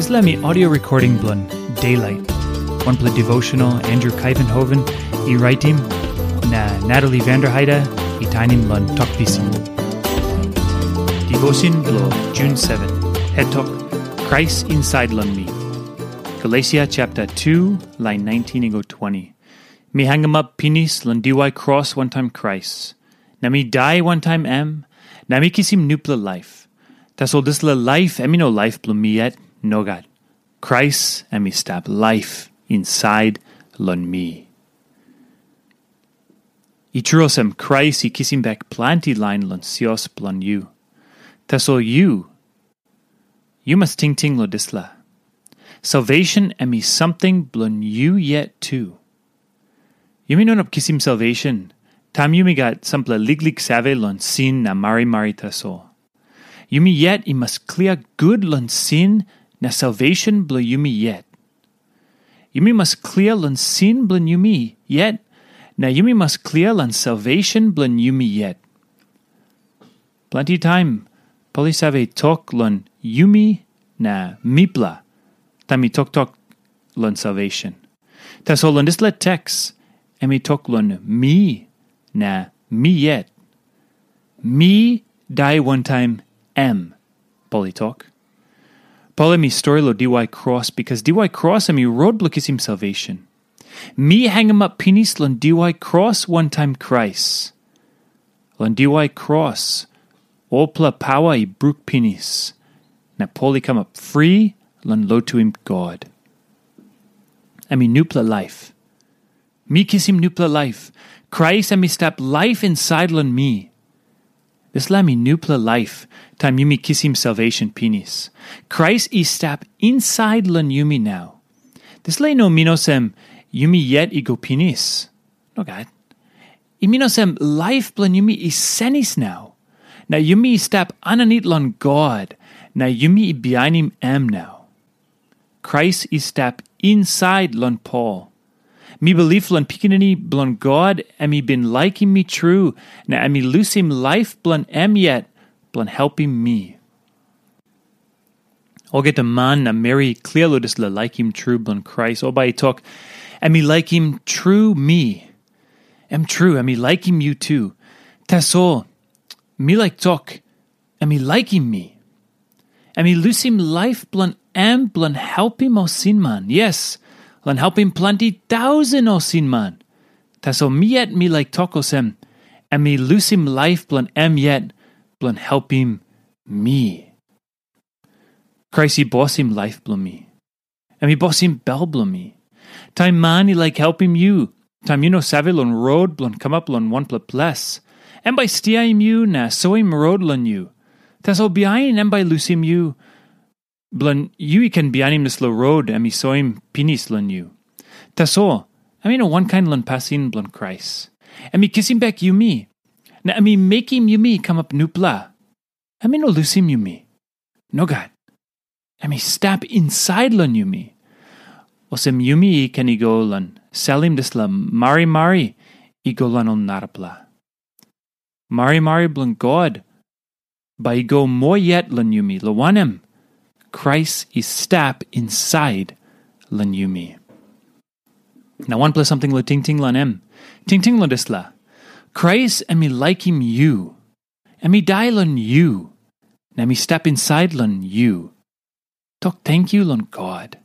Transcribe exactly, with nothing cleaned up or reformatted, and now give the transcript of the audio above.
Dispela mi audio recording bilong Daylight, wanpela devotional Andrew Kaivenhoven i raitim, na Natalie Vanderheide i tainim long Tok Pisin. Devotion bilong June seven, het tok, Krais insait long mi. Galesia chapter two, lain nineteen i go twenty. Mi hangamap pinis long diwai kros wantaim Krais, na mi dai wantaim em, na mi kisim nupela laip. Tasol dispela laip em i no laip bilong mi yet, nogat. Krais em i stap laip insait long mi. I tru olsem, Krais i kisim bek planti lain long sios bilong yu. Tasol yu, yu mas tingting long dispela. Salvation em i samting bilong yu yet tu. Yumi no inap kisim salvation taim yumi gat sampela liklik save long sin na marimari tasol. Yumi yet i mas klia gut long sin na salvation bilong yumi yet. Yumi mas klia long sin bilong yumi yet, na yumi mas klia long salvation bilong yumi yet. Planti taim, Pol i save tok long yumi na mipela, taim i toktok long salvation. Tasol long dispela teks, em i tok long mi na mi yet. Mi dai wantaim em, Pol i tok. Pol em i stori long diwai kros, bikas diwai kros em i rot bilong kisim salvation. Mi hangamap pinis long diwai kros wantaim Krais. Long diwai kros, olpela paua i bruk pinis, na Pol i kamap fri long lotuim God. Em i nupela laip. Mi kisim nupela laip. Krais em i stap laip insait long mi. Dispela em i nupela laip, taim yumi kisim salvation pinis. Krais i stap insait long yumi nau. Dispela i no min olsem yumi yet i go pinis. Nogat. I min olsem laip bilong yumi i senis nau. Na yumi i stap aninit long God, na yumi i bihainim em nau. Krais i stap insait long Pol. Mi bilip long Pikinini bilong God em i bin laikim mi tru, na em i lusim laip bilong em yet bilong helpim mi. Olgeta man na meri i klia long dispela laikim tru bilong Krais, ol bai i tok, em i laikim tru mi. Em tru, em i laikim yu tu. Tasol, mi laik tok, em i laikim mi. Em i lusim laip bilong em bilong helpim ol sinman. Yes, long helpim planti tausen ol sinman. Tasol mi yet mi laik tok olsem, em i lusim laip bilong em yet bilong helpim mi. Krais i bosim laip bilong mi. Em i bosim bel bilong mi. Taim man i laik helpim yu, taim yu no save long rot bilong kamap long wanpela ples, em bai stiaim yu na soim rot long yu. Tasol bihain em bai lusim yu, bilong yu i ken bihainim dispela rot em i soim pinis long yu. Tasol, em i no wankain long pasin bilong Krais. Em i kisim bek yumi, na em i mekim yumi kamap nupela. Em i no lusim yumi. Nogat. Em i stap insait long yumi. Olsem yumi i ken i go long salim dispela marimari i go long ol narapela. Marimari bilong God bai i go moa yet long yumi, long wanem, Krais i stap insait long yumi. Na wanpela samting long tingting long em. Tingting long dispela. Krais em i laikim yu. Em i dai long yu. Na em i stap insait long yu. Tok tenkyu long God.